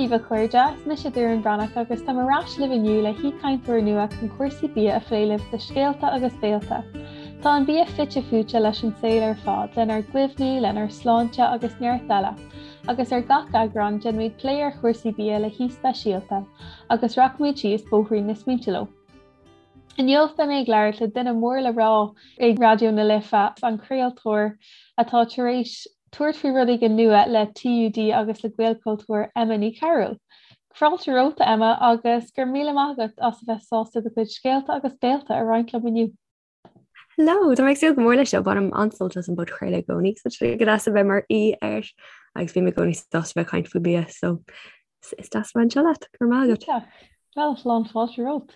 daoibh a chairde, is mise Doireann Bhreathnach agus táim ar ais libh inniu le haoichainteoir nua chun cúrsaí bia a phlé libh do Scéalta agus Béilte. Tá an bia fite fuaite leis an saol ar fad, lenár gcuimhní, lenár sláinte agus neart eile. Agus ar gach eagrán, déanfaimid plé ar chúrsaí bia le haoi speisialta, agus rachaimid síos bóithrín na smaointe leo. Inniu beidh mé ag labhairt le duine mór le rá ag Raidió na Life, an craoltóir atá tar éis tabhairt faoi rud éigin nua le TUD agus le Gaelchultúr, Emma Ní Chearúil. Fáilte romhat, a Emma, agus go raibh míle maith agat as a bheith sásta do chuid scéalta agus béilte a roinnt liom inniu. Hello, tá mé ag súil go mór leis seo, bainim an-sult as an bpodchraoladh i gcónaí, so tá sé go deas a bheith mar aoi air agus bím i gcónaí sásta bheith ag caint faoi bia, so is deas a bheith anseo leat, go raibh maith agat. Bhuel, lán fáilte romhat.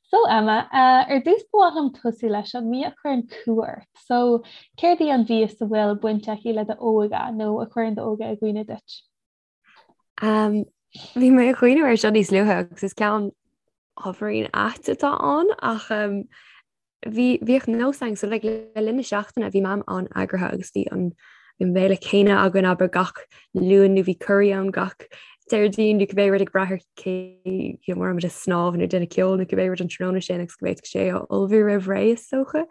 So Emma, ar dtús ba mhaith liom tosú leis an mbia a chuireann cumha ort. So, céard í an mhias a bhfuil baint aici le d'óige nó a chuireann d'óige i gcuimhne duit? Um, bhí mé ag cuimhneamh air seo níos luaithe agus is ceann ábhairín ait atá ann ach um, Bhí, bhíodh nós againn, so like le linn na seachtaine bhí Mam an-eagraithe agus bhí an an béile céanna againn abair gach Luan nó bhí curry ann gach Déardaoin nó cibé rud ag brath ar cé you know, an raibh muid ag snámh nó déanamh ceoil nó cibé rud an tráthnóna sin agus go bhféadfadh sé a ullmhú roimh ré is dócha.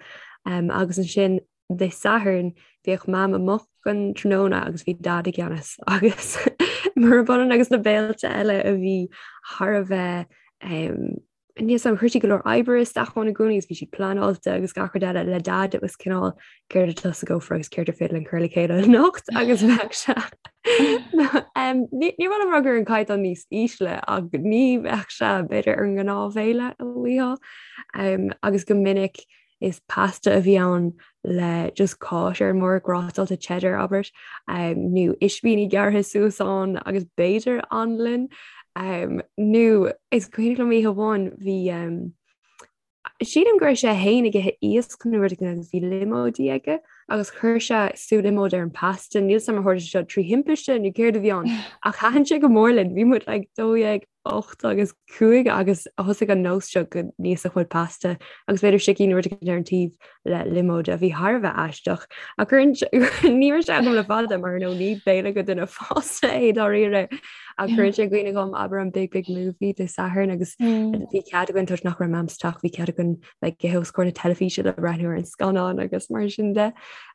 Um, agus ansin Dé Sathairn bhíodh Mam amuigh don tráthnóna agus bhí Dad i gceannas agus murab ionann agus na béilte eile a bhí thar a bheith um, Níl 's a'm, chuir sí go leor oibre isteach ann i gcónaí agus bhí siad pleanáilte agus gach rud eile le Dad it was cineál céard atá sa gcófra agus céard ar féidir linn cur le chéile anocht agus bheadh sé ní ní raibh rud ar an caighdeán níos ísle ach ní bheadh sé b'fhéidir ar an ngnáthbhéile a bhíodh agus go minic Is pasta a bhí ann le just cáis ar an mbord, grátáilte cheddar abair, nó ispíní gearrtha suas ann agus b'fhéidir anlann. Nó is cuimhin liom oíche amháin bhí sílim go raibh sé féin ag ithe iasc nó rud éigin agus bhí liomóidí aige agus chuir sé sú liomóid ar an pasta. Níl 's a'm ar tharla sé seo trí thimpiste nó céard a bhí ann ach thaitin sé go mór linn. Bhí muid like 12 8 agus 5 agus thosaigh an nós seo go n-íosfadh muid pasta agus b'fhéidir sicín nó rud éigin ar an taobh le liomóid a bhí thar a bheith aisteach. Ach ní raibh sé agam le fada mar nó ní béile do dhuine fásta é dáiríre ach cuireann sé i gcuimhne dhom abair an Big Big Movie Dé Sathairn agus bhí cead againn toisc nach raibh Mam sa teach bhí cead againn bheith ag ithe os comhair na teilifíse le breathnú ar an scannán agus mar sin de.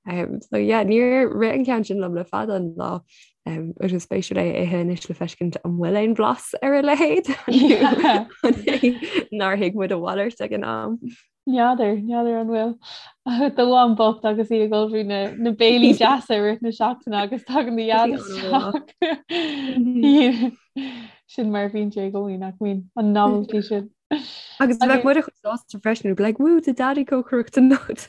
Um, so yeah, níor rith an ceann sin liom le fada an lá. Um, is spéisiúil é a ithe anois le feiscint an bhfuil aon bhlas ar a leithéid nár thuig muid a mhalairt ag an am. N'fheadar, n'fheadar an bhfuil do mham bocht agus í ag ullmhú na, na béilí deasa i rith na seachtaine agus tagann do dhaid isteach. Sin mar a bhíonn sé i gcónaí nach mbíonn an novelty sin. Agus bheadh muid chomh sásta freisin, like, woo, tá daddy cócaireacht anocht.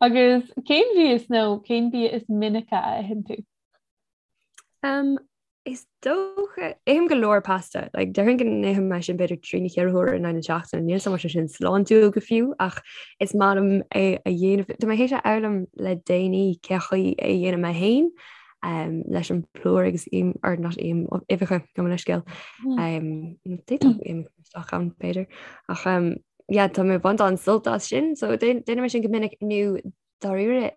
Agus cén mhias nó cén bia is minice a itheann tú? Um, is dócha ithim go leor pasta, like, déarfainn go n-ithim é sin b'fhéidir trí nó cheithre huaire in aghaidh na seachtaine, níl 's a'm an sé sin sláintiúil go fiú ach is maith liom é a dhéanamh. Tá mé théis a fhoghlaim le déanaí cé chaoi é a dhéanamh mé féin um, leis an plúr agus im or not im uibheacha gabh mo leithscéal. Mm. Um, D'fhéadfadh im isteach ann b'fhéidir ach um, yeah, tá mé ag baint an-sult as sin, so déanaim é sin go minic nó dáiríre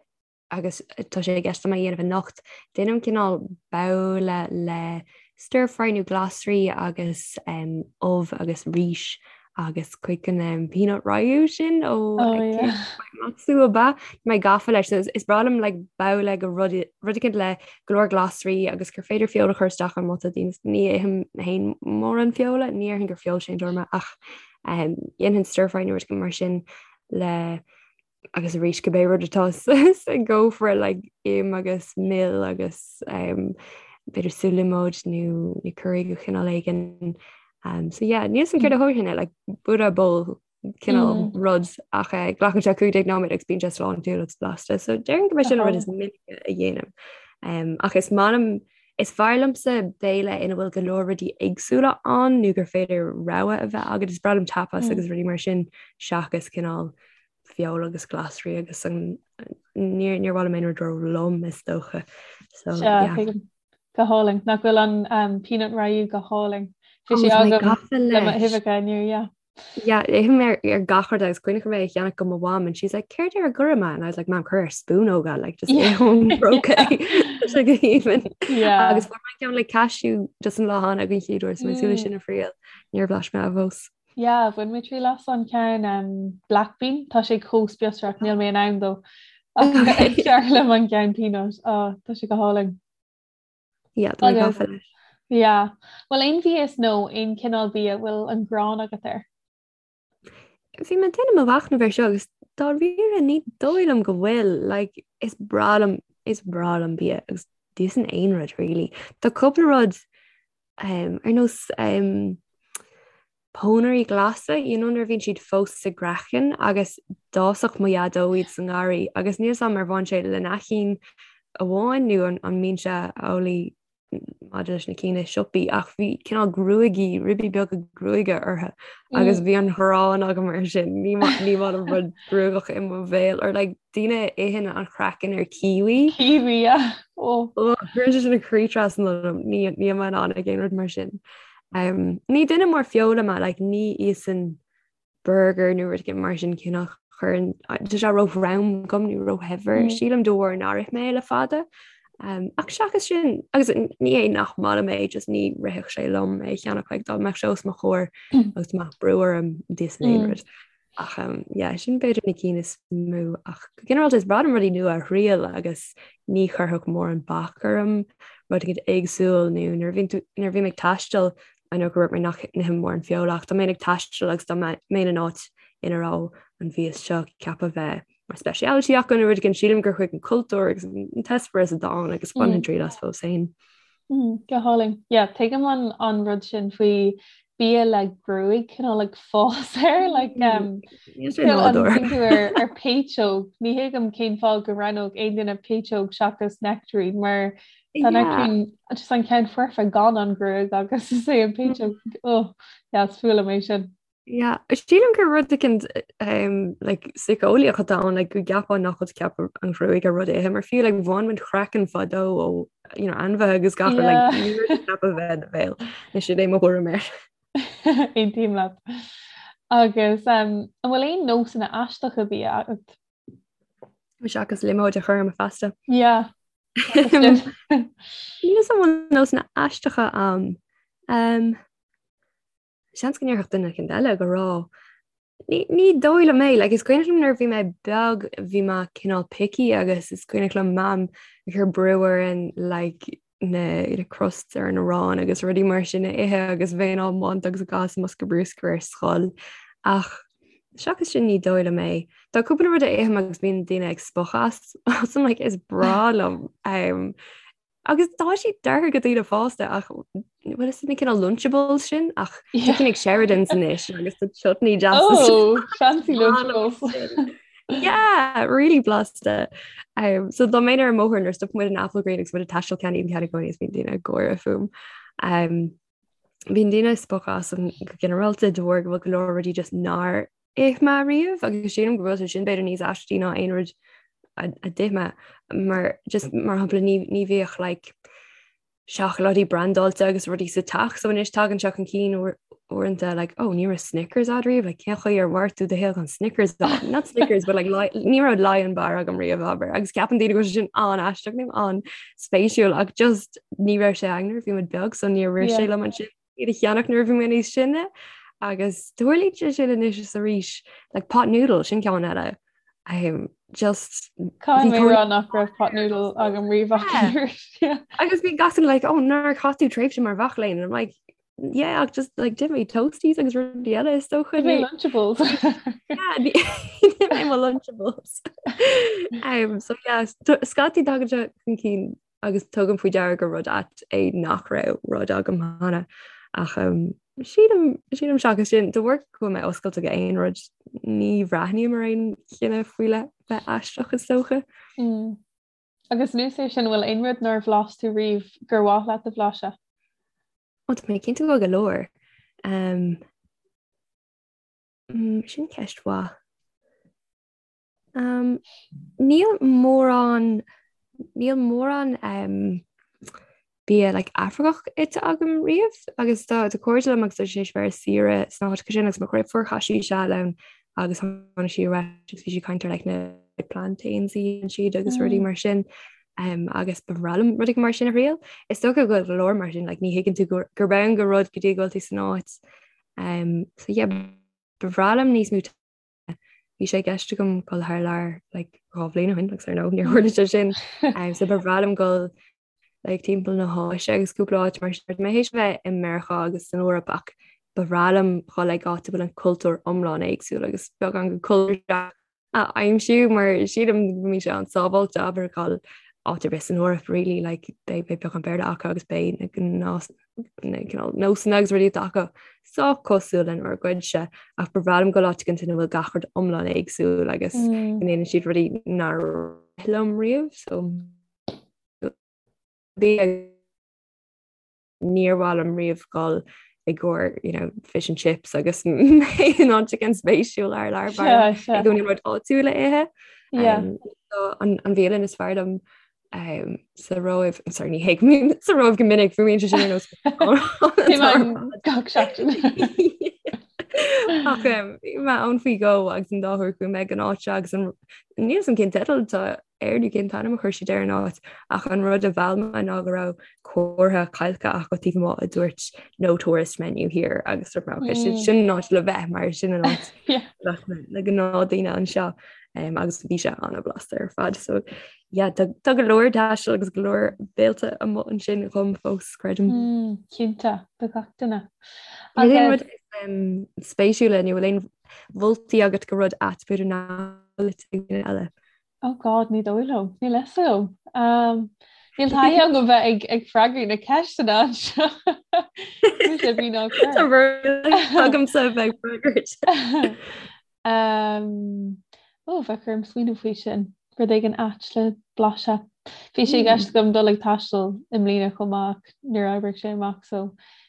agus tá sé i gceist agam a dhéanamh anocht, déanaim cineál babhla le stir fry nó glasraí agus um, ubh agus rís agus cuid den um, peanut rayu sin ó oh, yeah. Matsu ab ea mé gafa leis so is breá liom like, babhla go rud rud le go leor glasraí agus gur féidir feoil a chur isteach ann má tá daoine ní ithim féin mórán feola ní déarfainn gur feoilséantóir mé ach Dhéanfainn stir fry nó rud mar sin le agus arís cibé rud atá sa gcófra like im agus mil agus um, b'fhéidir sú liomóid nó nó curry de chineál éigin. Um, so yeah, níl 's a'm céard a thabharfainn air like Buddha bowl cineál mm. rud ach eh, glacann sé 15 nóiméad agus bíonn sé sláintiúil agus blasta. So déarfainn go mb'é sin an rud is minice a dhéanaim. Um, ach is maith liom Is fearr liomsa béile ina bhfuil go leor rudaí éagsúla ann nó gur féidir rogha a bheith agat. Is breá liom tapas agus rudaí mar sin seachas cineál feoil agus glasraí agus an níor níor mhaith liom aon rud ró-lom is dócha. So yeah. Go hálainn. Nach bhfuil an um, peanut rayu go hálainn. Bhí sé agam le m'uibheacha inniu, yeah. Yeah, ithim ar ar gach rud agus cuimhneach mé a cheannach go mo mham and she's like céard ar a gcuirfidh mé and I was like mam cuir ar spúnóg é like just yeah. ón bpróca sé go haoibhinn. Yeah. Agus fuair mé ceann le cashew just an lá cheana den chéad uair so mé súil sin a thriail níor bhlais mé fós. Yeah, bhain mé triail as an ceann um, black bean, tá sé chomh spíosrach níl mé in ann dó. Is fearr liom an ceann peanut, oh, tá sé go hálainn. Yeah, tá mé gafa leis. Yeah. Bhfuil aon mhias nó aon chineál bia a bhfuil an ghráin agat air? Bhí mé ag déanamh mo mhachnamh air seo agus dáiríre ní dóigh liom go bhfuil, like, is breá liom, is breá liom bia agus d'íosfainn aon rud really. Tá cúpla rud um, ar nós um, pónairí glasa, you know nuair a bhíonn siad fós sa gcraiceann agus d'fhásfadh mo dhaideo iad sa ngarraí agus níl 's a'm ar bhain sé lena chinn amháin nó an an mbíonn sé amhlaidh maidir leis na cinn i siopaí ach bhí cineál gruaigí, ribí beaga gruaige orthu agus bhí an ghráin agam air sin, ní maith ní maith liom rud gruagach i mo bhéal or like daoine a itheann an craiceann ar kiwi. Kiwi, yeah. Oh. Oh, cuireann sé sin an croí trasna liom, ní níl mé in ann ag aon rud mar sin. Um, ní duine mór feola mé, like, ní íosfainn burger nó rud mar sin cineál chuireann tá sé ró-throm dom nó róshaibhir mm. sílim de bharr nár ith mé le fada. Um, ach seachas sin agus ní é nach maith liom é just ní rithfeadh sé liom é a cheannach like, dá mbeadh sé os mo chomhair mm. agus mbeadh brú orm d'íosfainn aon mm. rud. Ach um, yeah, sin b'fhéidir na cinn is mó ach go ginearálta is breá liom rudaí nua a thriail agus ní chuirfeadh mórán bac orm rud éigin éagsúil nó nuair a bhíonn tú nuair a bhím ag taisteal I know gur dúirt mé nach n-ithim mórán feola ach dá mbeinn ag taisteal agus dá mbeinn in áit ina raibh an mhias seo ceaptha bheith mar speciality acu nó rud éigin sílim gur chuig an cultúr agus an t-eispéireas atá ann agus bhainfinn triail as fós féin. Mm, go hálainn. Yeah, tuigim an, an rud sin faoi bia le gruaig cineál ag fás air like um, ar, ar péitseog ní thuigim cén fáth go roghnódh aon duine péitseog seachas nectarine mar tá nectarine just an ceann foirfe gan an ghruaig agus is é an péitseog oh, yeah, is fuath liom é sin. Yeah, sílim gur rud éicint um, like, síceolaíoch atá ann like, go gceapfá nach bhfuil ceaptha an ghruaig ar rud a ithe mar fiú like, bhain muid craiceann fadó ó you know, ainmhithe agus gach yeah. like, ní rud ceaptha bheith i do bhéal. Ní sin é mo thuairim air. Aontaím leat. Agus um, an bhfuil aon nósanna aisteacha bia agat? Seachas liomóid a chur ar mo phasta. Yeah. Níl a fhios an bhfuil nósanna aisteacha agam. Um, Seans go ndéarfadh duine éicint eile go raibh. Ní, ní dóigh liom é, like, is cuimhneach liom nuair a bhí mé beag bhí mé cineál picky agus is cuimhneach liom mam ag cur brú orainn like, na, na crusts ar an arán agus rudaí mar sin a ithe agus bheinn á mbaint agus á gcaitheamh sa mbosca bruscair ar scoil. Ach seachas sin ní dóigh liom é. Tá cúpla rud a ithim agus bíonn daoine ag spochadh as, as like, is breá liom. Um, Agus tá siad deartha do dhaoine fásta ach bhfuil is na cineál Lunchables sin ach tá cinn ag Sheridan's anois agus tá chutney deas. Oh, fancy Lunchables. Yeah, really blasta. Um, so dá mbeinn ar an mbóthar nuair stop muid in Applegreen agus muid ag taisteal ceannaím ceann i gcónaí is bíonn daoine ag gáire fúm. Um, bíonn daoine ag spochadh asam go ginearálta de bharr go bhfuil go leor rudaí just nár ith mé riamh agus sílim go bhfuil sé sin b'fhéidir níos aistí ná aon rud a d'ith mé mar just mar shampla ní ní bhíodh like seacláidí brandáilte agus rudaí sa teach so anois tagann sé chun cinn uaireanta like oh ní raibh Snickers agat riamh like cén chaoi ar mhair tú do shaol gan Snickers not Snickers but like ní raibh Lion bar agam riamh abair agus ceapann daoine go bhfuil sé sin an-aisteach nó an-spéisiúil ach just ní raibh sé againn nuair a bhí muid beag so níor rith sé liom ansin iad a cheannach nuair a bhí mé níos sine agus tarlaíonn sé sin anois is arís like pot noodle sin ceann eile um, just Caithfidh mé rá nach raibh pot noodle agam riamh agus bhí gach duine like oh nár chaith tú tréimhse mar mhac léinn and I'm like yeah ach just like d'ith mé toasties agus rudaí eile is dócha D'ith mé Lunchables yeah d'ith mé mo Lunchables um, so yeah scaití tagann sé chun cinn agus tugaim faoi deara gur rud ait é nach raibh rud agam cheana ach um, sílim sílim seachas sin de bharr go bhfuil mé oscailte go aon rud ní bhreathnaím ar aon chinneadh faoi leith bheith aisteach is dócha. Mm. Agus anuas air sin bhfuil aon rud nár bhlais tú riamh gur mhaith leat a bhlaiseadh? Ó tá mé cinnte go bhfuil go leor. Um, mm, sin ceist mhaith. Um, níl mórán níl mórán um, Bia like Afracach ite agam riamh agus tá tá cairde liom agus tá siad tar éis bheith ar saoire sna háiteacha sin agus mo dheirfiúr chaith sí seal ann agus tháinig sí ar ais agus bhí sí ag caint ar like na plantains a dhéanann siad agus rudaí mar sin um, agus ba bhreá liom rudaí mar sin a thriail. Is dócha go bhfuil go leor mar sin like ní thuigeann tú gur gurb ann do rud go dtí go bhfuil tú san áit. Um, so yeah, ba bhreá liom níos mó Bhí sé i gceist agam dul thar lear like 2 bhliain ó shin agus ar ndóigh níor tharla sé sin. Um, so ba bhreá liom dul like timpeall na hÁise agus cúpla áit mar sin. Tá mé théis bheith i Meiriceá agus san Eoraip ach ba bhreá liom dhul ag áit a bhfuil an cultúr iomlán éagsúil agus beagán den cultúr a aimsiú mar sílim go mbíonn sé an-sábháilte abair dhul áit ar bith san Eoraip really like beidh beidh beagán Béarla acu agus beidh na gnás na cineál nósanna agus rudaí atá acu sách cosúil lenár gcuidse ach ba bhreá liom dul áit éicint ina bhfuil gach rud iomlán éagsúil agus go ndéanann siad rudaí nár ith liom riamh so bhí níor mhaith liom riamh dul i gcomhair you know, fish and chips agus mé in áit éicint spéisiúil thar lear i gcónaí rud áitiúil a ithe. Um, so an, an bhialann is fearr liom um, sa Róimh sorry, ní théim sa Róimh go minic fuaimíonn sé sin ar nós gach seachtain. Ach um, bhí mé ann faoi dhó agus an dá huair chuaigh mé ag an áit seo agus an níl 'fhios a'm cén teideal atá air nó cén t-ainm a chuir siad ar an áit ach an rud a mheall mé ná go raibh comhartha cailce acu taobh amuigh a dúirt no tourist menu here agus dúirt mé okay sin sin an áit le bheith mar sin an áit le gnáthdhaoine anseo um, agus bhí sé an-bhlasta ar fad so yeah, tá tá go leor taistil agus go leor béilte amuigh ansin dhom fós creidim. Mm, cinnte do gach duine. Agus rud um, spéisiúla nó bhfuil aon mholtaí agat go rud ait b'fhéidir nach bhfuil ag daoine eile? Oh God, ní dóigh liom. Níl fhios agam. Um, níl taithí agam bheith ag, ag freagairt na ceisteanna anseo. Mise bí ná cur. Tá agamsa bheith ag freagairt. Um, ó, bheadh orm smaoineamh faoi sin. Rud éigin ait le blaiseadh. Bhí sé i gceist agam dul ag taisteal i mbliana chomh maith ach níor oibrigh sé amach, so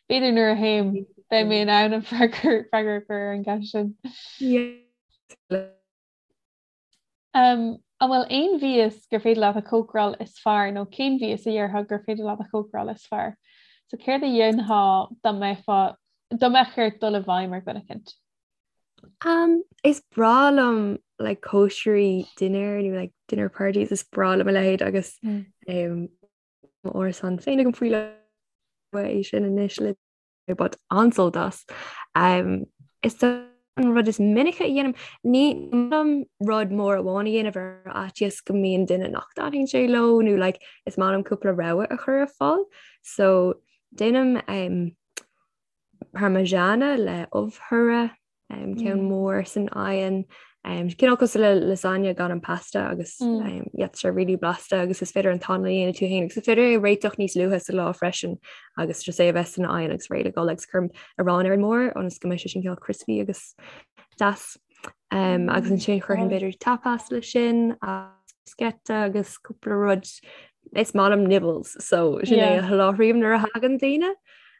b'fhéidir nuair a théim beidh mé in ann an freagra freagra a chur ar an gceist sin. Yeah. Um, an bhfuil aon mhias gur féidir leat a chócaráil is fearr nó cén mhias a dhéarfá gur féidir leat a chócaráil is fearr? So céard a dhéanfá dá mbeifeá dá mbeadh ort dul i bhfeidhm ar dhuine eicint? Um, is breá liom like cóisirí dinnéir nó like dinner parties is breá liom a leithéid agus mm. um, árasán féin agam faoi é sin anois le baint an-sult as. Um, is an rud is minice a dhéanaim ní liom rud mór amháin a dhéanamh ar fhaitíos go mbíonn duine nach dtaitníonn sé leo nó like, is maith liom cúpla rogha a chur ar fáil. So déanaim um, parmigiana le ubh thiubh um, ceann mm. mór san oigheann. Um, cineál cosúil le lasagna gan an pasta agus mm. um, yeah, tá sé really blasta agus is féidir an t-anlann a dhéanamh tú féin agus is féidir é réiteach níos luaithe sa lá freisin agus just é a bheith san oigheann agus réidh le dul agus cuirim arán ar an mbord ionas go mbeidh sé sin cineál crispy agus deas. Um, agus mm, ansin chuirfinn b'fhéidir tapas le sin bruschetta agus cúpla rud is maith liom nibbles so sin é a sholáthraím nuair a thagann daoine.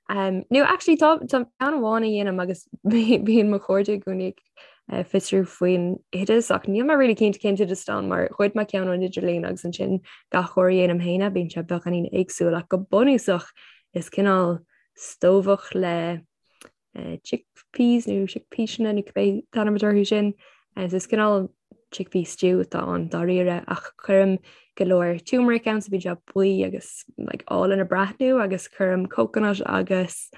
Um, nó actually tá tá ceann amháin a dhéanaim agus bíonn mo chairde i gcónaí ag eh, fiosrú faoin oideas ach níl mé really cinnte cén t-oideas atá ann mar ghoid mé ceann ón idirlíon agus ansin gach uair a dhéanaim féin é bíonn sé beagáinín éagsúil ach go bunúsach is cineál stobhach le eh, chickpeas nó chickpeasanna nó cibé t-ainm atá orthu sin. Eh, so is cineál chickpea stew atá ann dáiríre ach cuirim go leor turmeric ann so bíonn sé buí agus like, álainn ag breathnú agus cuirim coconut agus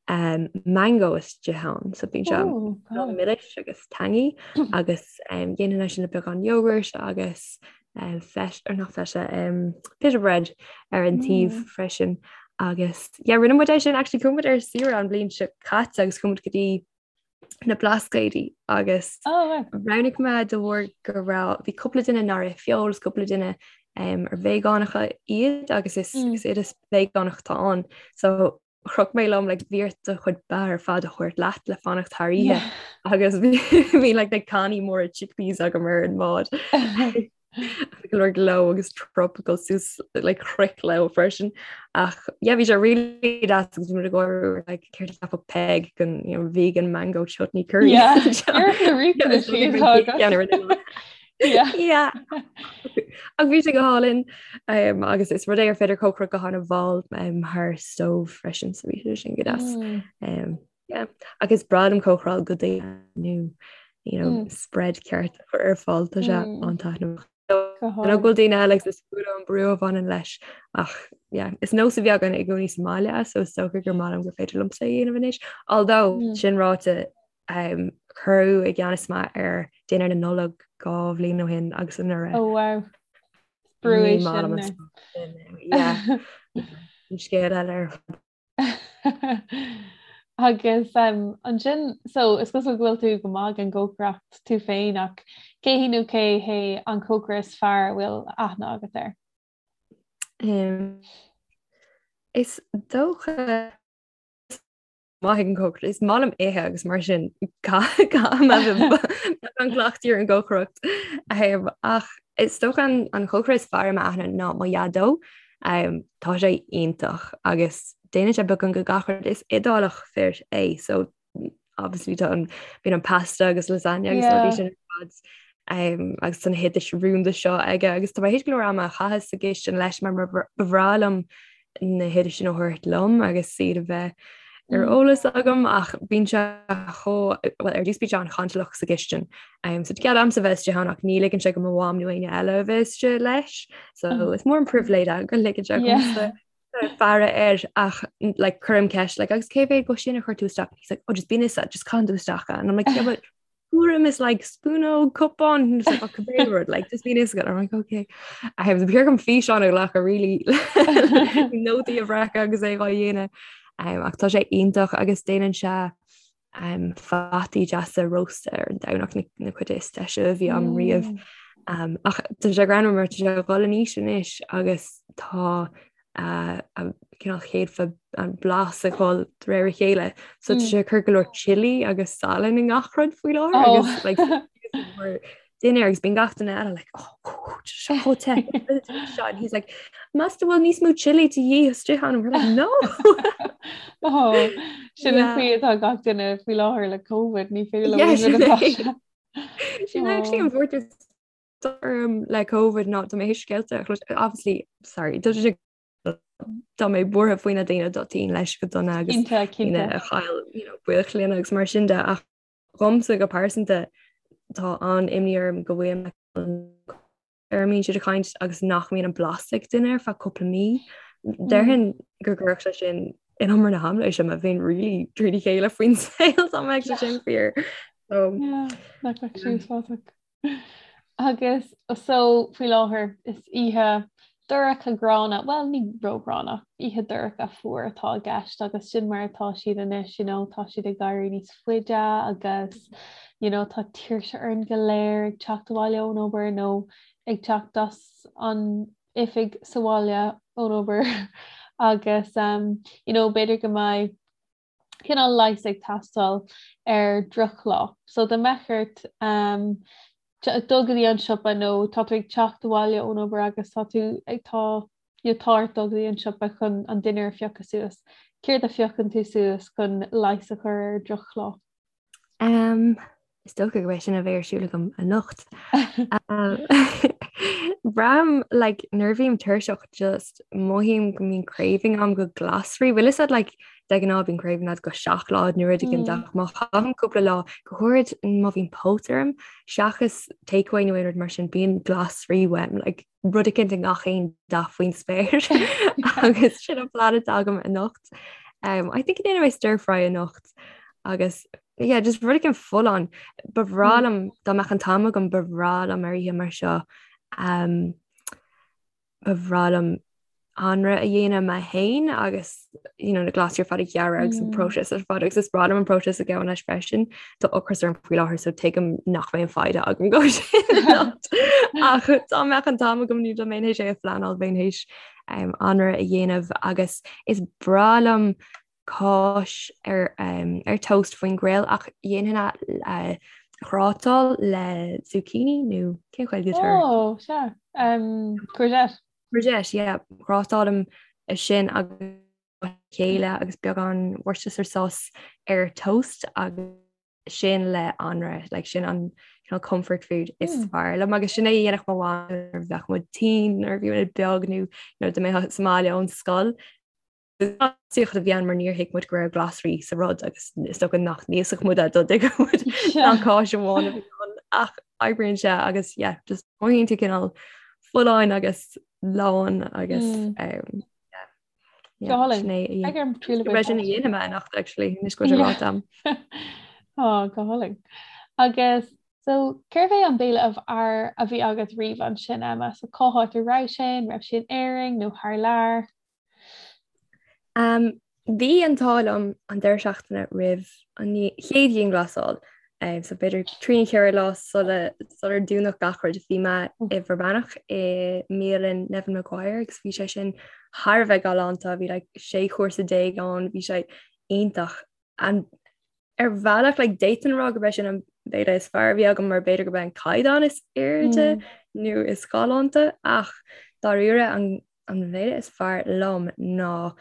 um, mango istigh ann so bíonn sé oh, milis agus tangy agus um, dhéanfainn é sin le beagán yogurt agus um, feta or not feta um, pita bread ar an taobh mm. freisin agus yeah, rinne muid é sin actually chuaigh muid ar saoire an bhliain seo caite agus chuaigh muid go dtí na Blascaodaí agus oh, roghnaigh mé de bharr go raibh bhí cúpla duine nár ith feoil agus cúpla duine um, ar veigeánacha iad agus is, mm. is oideas veigeánach atá ann. So chroch mé liom like, bhí ort do chuid beatha ar fad a thabhairt leat le fanacht thar oíche agus bhí like, na cannaí móra chickpeas agam ar an mbád. Go leor gleo agus tropical suas like chroich leo freisin ach yeah bhí sé really deas agus bhí muid ag gáire like céard a cheapfadh Peig den you know, vegan mango chutney curry. Yeah, ar na riachtanais. Yeah. Ach bhí sé go hálainn um, agus is rud é ar féidir cócaireacht go han-mhall um, thar stove freisin so bhí sé sin go deas. Mm. Um, yeah. Agus is breá liom cócaráil do dhaoine nó you know, mm. spread ceart a chur ar fáil tá sé mm. an-taitneamhach. Go bhfuil daoine eile agus is fuath liom an brú a bhaineann leis ach yeah, is nós a bhí againn i gcónaí sa mbaile so is dócha gur maith liom gur féidir liomsa a dhéanamh anois. Although mm. sin ráite um, cuireadh i gceannas mé ar dinnéar na Nollag 2 bhliain ó shin agus anuraidh. Oh wow. Brú é sin. Yeah. An scéal eile ar fad. Agus um, ansin so is cosúil go bhfuil tú go maith ag an gcócaireacht tú féin ach cé hí nó cé hé an cócaire is fearr a bhfuil aithne agat air? Um, is dócha maith ag an gcócaireacht. Is maith liom ithe agus mar sin an cleachtadh ar an gcócaireacht. Um, ach is dócha an, an cócaire is fearr i m'aithne ná mo dhaideo. Um, tá sé iontach agus déanann sé beagán de gach rud is Iodálach fir é, so obviously tá an bíonn an pasta agus lasagna agus rudaí sin ar fad. Um, agus tá na hoidis rúnda seo aige agus tá mé théis go leor ama a chaitheamh sa gcistin leis mar ba bhreá liom na hoidis sin a thabhairt liom agus iad a bheith ar mm. eolas agam ach bíonn sé chomh well ar dtús bíonn sé an-chantalach sa gcistin. Um, so cead a'msa bheith istigh ann ach ní ligeann sé do mo mham nó éinne eile a bheith istigh leis. So mm. is mór an pribhléid é go ligeann sé domsa faire air ach like cuirim ceist like agus cé mhéad de sin a chuir tú isteach he's like oh just bíonn a fhios agat just caitheann tú isteach and I'm like yeah but tuairim is like spúnóg cupán just like, cibé rud like just bíonn a fhios agat I'm like okay I have the gom físeán a ghlacadh really nótaí a bhreacadh agus é á dhéanamh um, ach tá sé iontach agus déanann sé um, fataí deasa rósta ar an Domhnach na, na cuid is deise a bhí agam riamh. Mm. Um, ach tá sé greannmhar mar tá sé ag dul in aois anois agus tá a cineál chéadfa an blas ag dul de réir a chéile. So tá sé ag cur go leor chili agus salann i ngach rud faoi láthair oh. agus like, dinnéar agus bíonn gach duine eile like oh, seo chomh te seo and he's like meas tú bhfuil níos mó chili de dhíth istigh ann we're like no oh, sin an chaoi atá gach duine faoi láthair le COVID ní féidir leo sin é. Sin actually an bhuairt orm le COVID ná tá mé théis scéalta a chlos obviously sorry tá sé tá mé buartha faoi na daoine atá tinn leis go dona agus daoine a chaill you know, baill clainne agus mar sin de ach dhomsa go pearsanta tá an-imní orm go bhfuil ar a mbíonn siad ag caint agus nach mbíonn an blas ag duine ar feadh cúpla mí. Déarfainn go gcuirfeadh sé sin in umar na haimléise má bhíonn really trína chéile faoin saol dá mbeadh sé sin fíor. So, yeah, nach mbeadh sé úsáideach. Agus so faoi láthair is oíche dorcha gránna, bhuel ní róghránna, oíche dorcha fuar atá i gceist agus sin mar atá siad anois, you know, tá siad ag éirí níos faide agus you know, tá tuirse orainn go léir ag teacht abhaile ón obair nó ag teacht as an oifig sa bhaile ón obair agus um, you know, b'fhéidir go mbeidh cineál leigheas ag teastáil ar drochlá. So dá mbeadh ort um, dul go dtí an siopa nó tá tú ag teacht abhaile ón obair agus tá tú ag tá you know, tá ort dul go dtí an siopa chun an dinnéar a phiocadh suas. Céard a phiocann tú suas chun leigheas a chur ar drochlá? Um, is dócha go sin a bheidh ar siúl agam anocht. Um, Braithim like, nuair a bhím tuirseach just mothaím go mbíonn craving agam go glasraí. Bhfuil fhios agat like, de ghnáth bíonn craving agat go seacláid nó rud éigin mm. ach má chaithim cúpla lá go háirid má bhíonn póit orm seachas takeaway nó aon rud mar sin bíonn glasraí uaim like, rud éicint i ngach aon dath faoin spéir agus sin an plean atá agam anocht. Um, I think déanfaidh mé stir fry anocht agus yeah, just rud éicint folláin ba bhreá mm. liom dá mbeadh an t-am agam ba bhreá liom ar oíche mar seo um, ba bhreá liom anraith a dhéanamh mé féin agus you know, na glasraí ar fad a ghearradh agus an mm. próiseas ar fad agus is breá liom an próiseas a ghabhann leis freisin Tá ocras orm faoi láthair so tuigim nach mbeidh an foighid agam dó sin ach dá mbeadh an t-am agam nó dá mbeinn théis é a phleanáil bheinn théis um, anraith a dhéanamh agus is breá liom cáis ar, um, ar toast faoin grill ach dhéanfainn a uh, ghrátáil le zucchini nó cén Ghaeilge atá air? Oh, sea. Um, courgette. Courgette, yeah. Grátálaim é sin agus chéile agus beagán Worcestershire sauce ar toast agus sin le anraith, like sin an Cineál comfort food is fearr liom agus sin é a dhéanfadh mo mham nuair a bheadh muid tinn nuair a bhí muid beag nó nuair a mbeadh sa mbaile ón scoil. Saocht a bhí ann mar níor thuig muid go raibh glasraí sa rud agus is dócha nach n-íosfadh muid é dá dtuigfeadh muid nach cáis amháin a bhí ann ach oibríonn sé agus yeah, just mothaíonn tú cineál folláin agus lán agus um, Go hálainn. Beidh orm triail a bhaint as. Sin a dhéanfaidh mé anocht actually, anois go bhfuil sé ráite agam. Ó, go hálainn. Agus so cérbh é an béile ab fhearr a bhí agat riamh ansin, Emma? So cá háit a raibh sé? An raibh sé in Éirinn nó thar lear? Um, bhí an t-ádh liom an deireadh seachtaine roimh an chéad dianghlasáil. Um, so b'fhéidir trí nó ceithre lá sula sular dúnadh gach rud bhí mé i bhFear Manach i mbialann Nevin Maguire agus bhí sé sin thar a bheith galánta, bhí like, sé chúrsa déag ann, bhí sé iontach. And ar bhealach like, d'fhéadfainn a rá gurb é sin an béile is fearr a bhí agam mar b'fhéidir gurb é an caighdeán is airde mm. nó is galánta ach dáiríre an an bhéile is fearr liom ná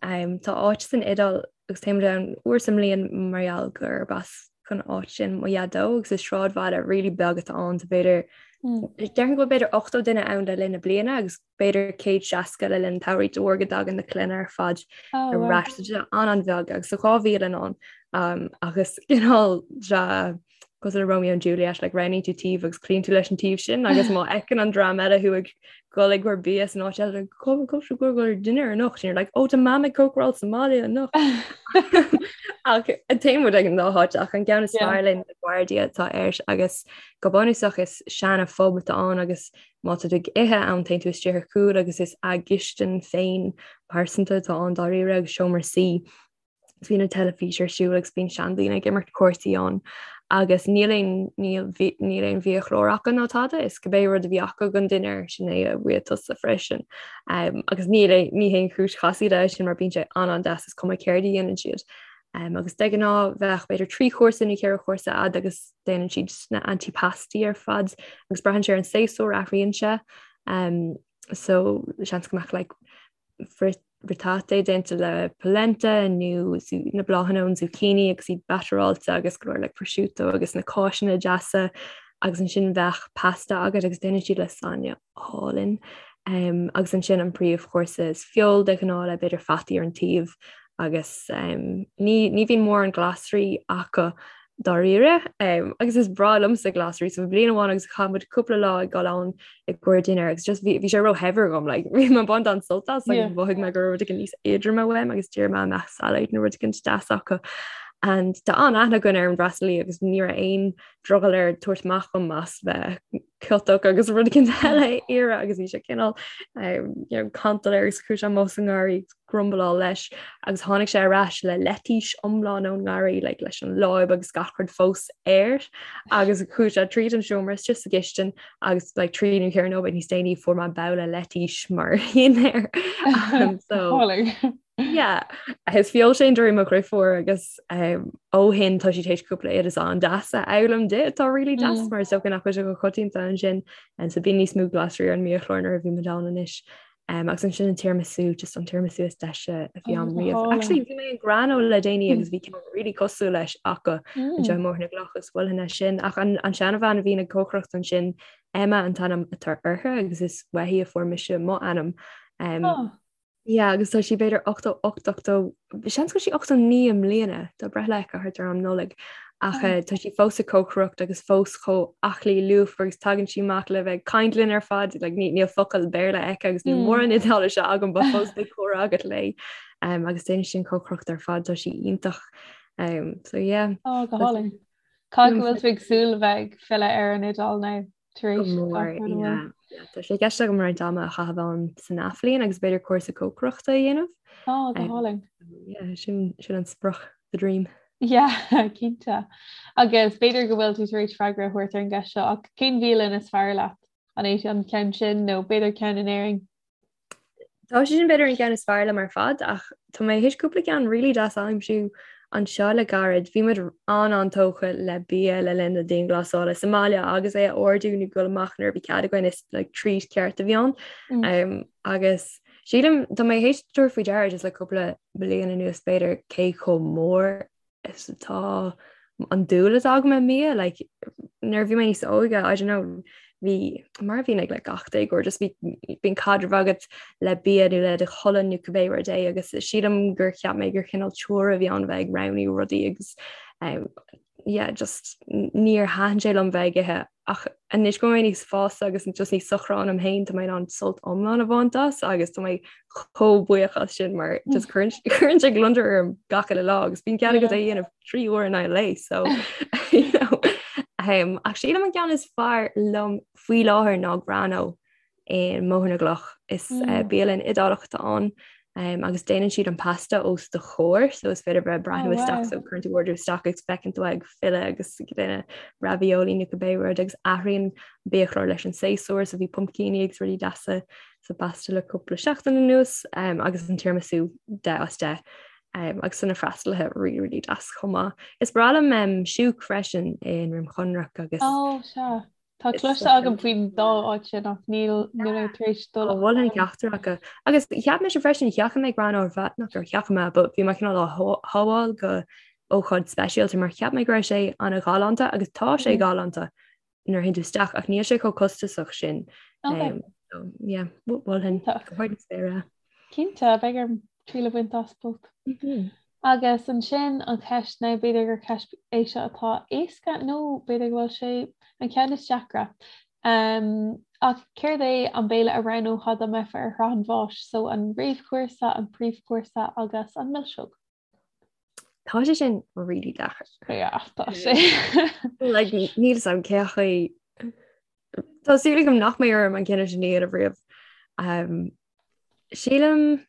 um, tá áit san Iodáil agus téimid ann uair sa mbliain mar gheall gurb as an áit sin mo dhaideo agus is sráidbhaile really beag atá ann so b'fhéidir mm. déarfainn go b'fhéidir 80 duine ann le linn na bliana agus b'fhéidir 160 le linn an tsamhraidh de bharr go dtagann na clainne ar fad ar ais so an-an-bheag agus tá 2 bhialann ann um, agus cineál cosúil le Romeo and Juliet like roghnaíonn tú taobh agus cloíonn tú leis an taobh sin agus má fheiceann an dream eile thú ag dul ag cur bia san áit eile go go go go dinnéar anocht and you're like oh tá mam ag cócaráil sa mbaile anocht ach téann muid ag an dá háit ach an ceann is fearr linn Guardia atá air agus go bunúsach is seana phub atá ann agus má tá tú ag ithe ann téann tú isteach ar chúl agus is a gcistin féin pearsanta atá ann dáiríre agus seomra suí agus bíonn an teilifís ar siúl agus bíonn seandaoine ag imirt cártaí ann agus níl aon níl níl aon bhiachlár acu ná tada is cibé rud a bhí acu don dinnéar sin é a bhfuair tusa freisin. Um, agus níl ní haon chúis chasaoide é sin mar bíonn sé an-an-deas is cuma céard a dhéanann siad. Um, agus de ghnáth bheadh b'fhéidir trí chúrsa nó ceithre chúrsa agat agus déanann siad na antipasti ar fad agus braitheann sé ar an séasúr athraíonn sé. Um, so seans go mbeadh like, fritate déanta le polenta nó na bláthanna ón zucchini agus iad batteráilte agus go leor like prosciutto agus na cáiseanna deasa agus ansin bheadh pasta agat agus déanann siad lasagne álainn. Um, agus ansin an príomhchúrsa is feoil de ghnáth le b'fhéidir fataí ar an taobh agus um, ní, ní bhíonn mórán glasraí acu dáiríre. Um, agus is breá liomsa glasraí so bliain amháin agus chaith muid cúpla lá ag dul ann i gcomhair dinnéar agus just bhí sé róshaibhir dhom like, bhí mé ag baint an-sult as agus mhothaigh mé go raibh rud éigin níos éadroime uaim agus d'iarr mé an mbeadh salad nó rud éigin deas acu. And tá an-aithne againn ar an bhfreastalaí agus ní raibh aon drogall air tabhairt amach dhom as bheith ciotach agus rud éigin eile a iarraidh agus bhí sé cineál um, you know, cantal air agus chuaigh sé amach sa ngarraí grumbleáil leis agus tháinig sé ar ais le leitís iomlán ón ngarraí like, leis an láib agus gach rud fós air agus chuaigh sé tríd an seomra istigh sa gcistin agus like, trí nó ceithre nóiméad níos déanaí fuair mé babhla leitís mar dhinnéar. um, so yeah is feoil sé durí mo dheirfiúr agus um, ó shin tá sí tar éis cúpla oideas an-deas a fhoghlaim di atá really deas mm. mar is dócha nach bhfuil sé go coitianta ansin and so bíonn níos mó glasraí ar an mbiachlár nuair a bhí muid ann anois. Um, agus ansin an tiramisu just an tiramisu is deise a bhí agam riamh. Actually bhí mé in Grano le déanaí agus bhí ceann really cosúil leis acu anseo i mBóthar na gCloch agus mholfainn é sin ach an, an seanbhean a bhíonn ag cócaireacht ansin Emma an t-ainm atá uirthi agus is uaithi a fuair mise mo ainm. Um, oh. Yeah, agus tá sí b'fhéidir 88 80 seans go bhfuil sí 89 i mbliana tá breithlá aici thart ar am Nollaig ach oh. tá sí fós ag cócaireacht agus fós chomh aclaí lúfar agus tagann sí amach le bheith ag caint linn ar fad like, ní, níl focal Béarla aici agus níl mm. mórán Iodáilise agam but fós beidh comhrá agat léi um, agus déanann sí an cócaireacht ar fad tá sí iontach um, so yeah. Oh, go hálainn. Cá go bhfuil tú ag súil bheith ag filleadh ar an Iodáil now? tar éis Go mór, yeah. Tá sé i gceist agam roinnt ama a chaitheamh ann san athbhliain agus b'fhéidir cúrsa cócaireachta a dhéanamh. Á, go hálainn. Yeah, sin sin an sprioc, the dream. Yeah, cinnte. Agus b'fhéidir go bhfuil tú tar éis freagra a thabhairt ar an gceist seo ach cén bhialann is fearr leat? An é an ceann sin nó b'fhéidir ceann in Éirinn? Tá sé sin b'fhéidir an ceann is fearr liom ar fad ach tá mé théis cúpla ceann really deas a aimsiú anseo le gairid. Bhí muid an-an-tógtha le bia le linn na dianghlasála sa mbaile agus é a ordú nó dul amach nuair a bhí cead againn is like, treat ceart a bhí ann. Mm. Um, agus sílim tá mé théis tabhairt faoi deara just le cúpla bliain anuas b'fhéidir cé chomh mór is atá. an dúil atá agam i mbia, like, nuair a bhí mé níos óige, I don't know, bhí mar a bhíonn ag like, gach déagóir, just bhí bíonn caidreamh agat le bia nó le do cholainn nó cibé rud é agus sílim gur cheap mé gur chineál chore a bhí ann bheith ag roghnú rudaí agus um, yeah, just níor thaitin sé liom bheith ag ithe ach anois go bhfuil mé níos fásta agus just níos socra ionam féin tá mé in ann sult iomlán a bhaint as agus tá mé chomh buíoch as sin mar just cuireann cuireann sé gliondar orm gach uile lá agus bíonn cead agat é a dhéanamh 3 uair in aghaidh an lae so you know um, ach sílim an ceann is fearr liom faoi láthair ná Grano i mBóthar na gCloch. Is mm. bialann Iodálach atá ann um, agus déanann siad an pasta os do chomhair, so is féidir bheith breathnú oh, isteach so cuireann tú ordú isteach agus feiceann tú ag filleadh agus ag déanamh ravioli nó cibé rud agus athraíonn biachlár leis an séasúr so bhí pumpcíní agus rudaí deasa sa bpasta le cúpla seachtain anuas um, agus an tiramisu 10 as 10. Um, agus na freastalaithe really really deas chomh maith. Is breá liom um, Shouk freisin i nDroim Chonrach agus oh, sea. Tá cloiste agam faoin dá áit sin ach níl níl mé tar éis dul. Mholfainn ceachtar acu. Agus cheap mise freisin sheachain mé Grano ar feadh nach gur sheachain mé, but bhí mé cineál á shábháil go ócáid speisialta mar cheap mé go raibh sé an-ghalánta agus tá sé galánta nuair a théann tú isteach ach níl sé chomh costasach sin. Okay. So, yeah, mholfainn go hard na spéire. Cinnte, beidh orm triail a bhaint as both. Agus ansin an cheist nó b'fhéidir gur ceist é seo atá éasca nó b'fhéidir go bhfuil sé an ceann is deacra. Um, ach céard é an béile a roghnófá dá mbeifeá ar shraith an bháis, so an réamhchúrsa, an príomhchúrsa agus an milseog? Tá sé sin really deacair. Yeah, tá sé. Like, níl fhios agam cé chaoi Tá súil agam nach mbeidh orm an cinneadh sin a dhéanamh riamh. Um, sílim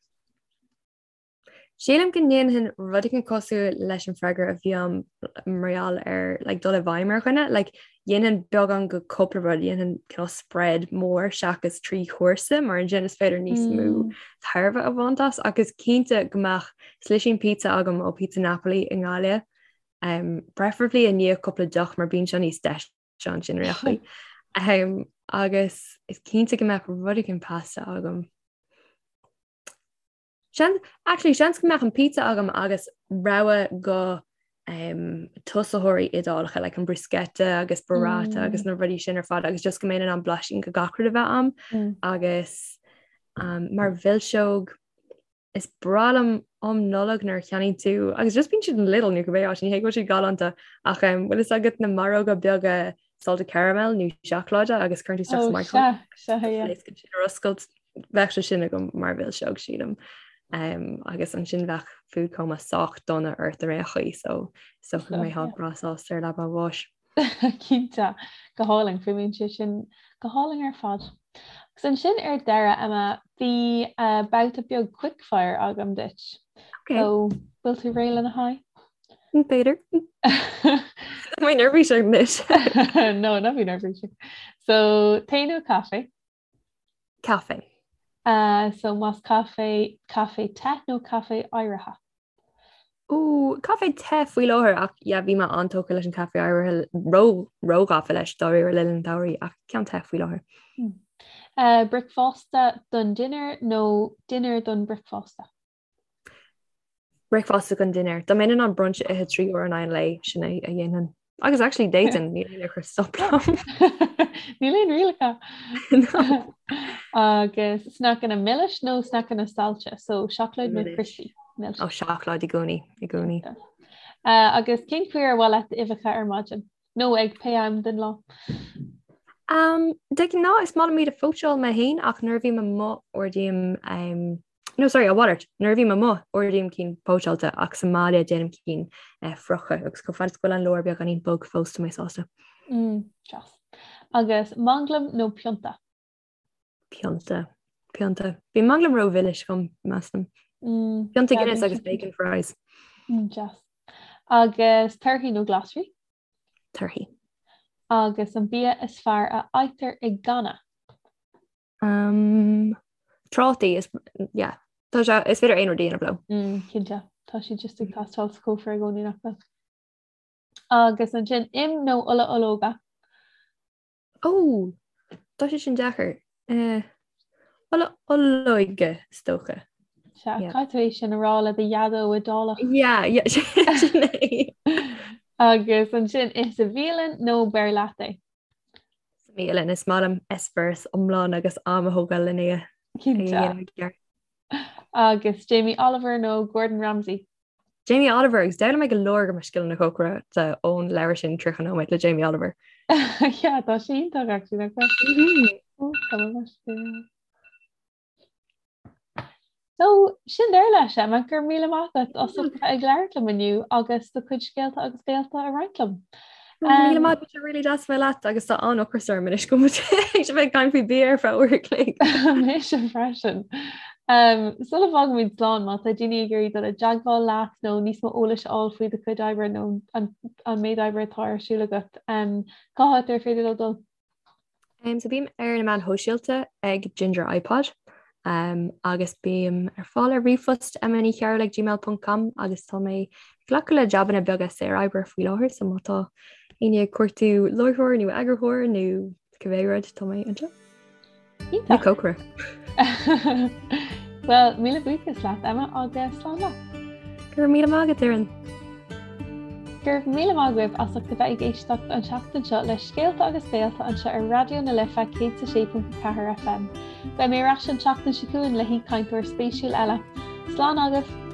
Sílim go ndéanfainn rud éigin cosúil leis an freagra a bhí agam mar gheall ar like, dul i bhfeidhm ar dhuine, like, dhéanfainn beagán go cúpla rud, dhéanfainn cineál spread mór seachas 3 chúrsa mar ansin is féidir níos mó mm. tairbhe a bhaint as agus cinnte go mbeadh slisín pizza agam ó Pizza Napoli i nGaillimh. Um, preferably i ndiaidh cúpla deoch mar bíonn sé níos deise ansin ar aon chaoi. Um, agus is cinnte go mbeadh rud éigin pasta agam. Seans, actually, seans go mbeadh an pizza agam agus rogha go um, tosaitheoirí Iodálacha, like an bruschetta agus burrata mm. agus na rudaí sin ar fad agus just go mbeinn in ann blaisín go gach rud a bheith agam mm. agus um, mar mhilseog is breá liom um Nollaig nuair a cheannaíonn tú agus just bíonn siad in Lidl nó cibé áit ní hé go bhfuil siad galánta ach um, bhfuil fhios agat na maróga beaga salted caramel nó seacláide agus cuireann tú isteach sa microwave. Sea, sea, yeah. Sin ar oscailt bheadh sé sin agam mar mhilseog sílim. Um, agus ansin bheadh food coma sách dona ort ar aon chaoi so so go mbeifeá breá sásta ar leaba an bháis. Cinnte, go hálainn, fuaimníonn sé sin go hálainn ar fad. Agus ansin ar deireadh, Emma, bhí uh, babhta beag quickfire agam duit. Okay. So, bhfuil tú réidh lena haghaidh? B'fhéidir. Tá mé neirbhíseach anois. No, ná bí neirbhíseach. So, tae nó caife? Caife. Uh, so más caife, caife te nó caife oighrithe? Ó, caife te faoi láthair ach yeah, bhí mé an-tógtha leis an caife oighrithe ró róghafa leis dáiríre le linn an tsamhraidh ach ceann te faoi láthair. Hmm. Uh, bricfeasta don dinnéar nó dinnéar don bricfeasta? Bricfeasta don dinnéar. Dá mbeinn in ann brunch a ithe 3 uair in aghaidh an lae, sin é a dhéanfainn. Agus actually d'fhéadfainn, níl aon ag cur stop liom. Níl aon rialacha. No. Agus sneaiceanna milis nó sneaiceanna saillte, so seacláid nó crispy? Milse. Ó seacláid i gcónaí, i gcónaí. Uh, agus cén chaoi ar mhaith leat uibheacha ar maidin? Nó ag pé am den lá? Um, de ghnáth is maith liom iad a phóitseáil mé féin ach nuair a bhím amuigh ordaím um, No sorry, a mhalairt, nuair a bhím amuigh, ordaím cinn póitseáilte ach sa mbaile déanaim cinn eh, friochta agus chomh fada is go bhfuil an lár beagáinín bog fós tá mé sásta. Mm, deas. Agus manglam nó pionta? Pionta. Pionta. Bhí manglam ró-mhilis dom, measaim. Mm, Pionta Guinness agus bacon fries. Mm, deas. Agus torthaí nó glasraí? Torthaí. Agus an bia is fearr a fhaightear i gcanna? Um, trátaí is yeah, tá sé is féidir aon rud a dhéanamh leo. Mm, cinnte, tá siad just ag teastáil sa chófra i gcónaí nach bhfuil. Agus ansin im nó ola ológa? Ó, tá sé sin deacair. Eh, ola olóige is dócha. Sea, yeah. caithfidh tú é sin a rá le do dhaideo Iodálach. Yeah, yeah, sin é. Agus ansin ith sa bhialann nó beir leat é? Sa mbialann, is maith liom eispéireas iomlán agus am a thógáil lena é a dhéanamh i gceart. Agus Jamie Oliver nó Gordon Ramsay? Jamie Oliver agus d'fhoghlaim mé go leor de mo scileanna cócaireachta ón leabhar sin 30 nóiméad le Jamie Oliver. Yeah, tá sé iontach actually nach bhfuil? Oh, tá mé So, sin deireadh leis, Emma, go raibh míle maith agat as ucht a bheith ag labhairt liom inniu agus do chuid scéalta agus béalta a roinnt liom. Go raibh míle maith, bhí sé really deas bheith leat agus tá an-ocras orm anois go bhfuil muid ag caint faoi bia ar feadh uair a chloig. Mise freisin. Um, sula bhfágaimid slán, má tá daoine ag iarraidh dul i dteagmháil leat nó níos mó eolais a fháil faoi do chuid oibre nó an, an méid oibre atá ar siúl agat, um, cá háit ar féidir leo dul? Um, so bím ar na meáin shóisialta ag Ginger iPod um, agus bím ar fáil ar ríomhphost emmanichearúil ag gmail.com agus tá mé ag glacadh le jabanna beaga saor oibre faoi láthair so má tá éinne ag cuartú láithreoir nó eagarthóir nó cibé rud tá mé anseo. Iontach. Cócaire. Well, míle buíochas leat Emma agus slán leat. Go raibh míle maith agat Doireann. Go raibh míle maith agaibh as ucht a bheith ag éisteacht an tseachtain seo le Scéalta agus Béalta anseo ar Raidió na Life 106.4 FM. Beidh mé ar ais an tseachtain seo chugainn le haoichainteoir spéisiúil eile. Slán agaibh!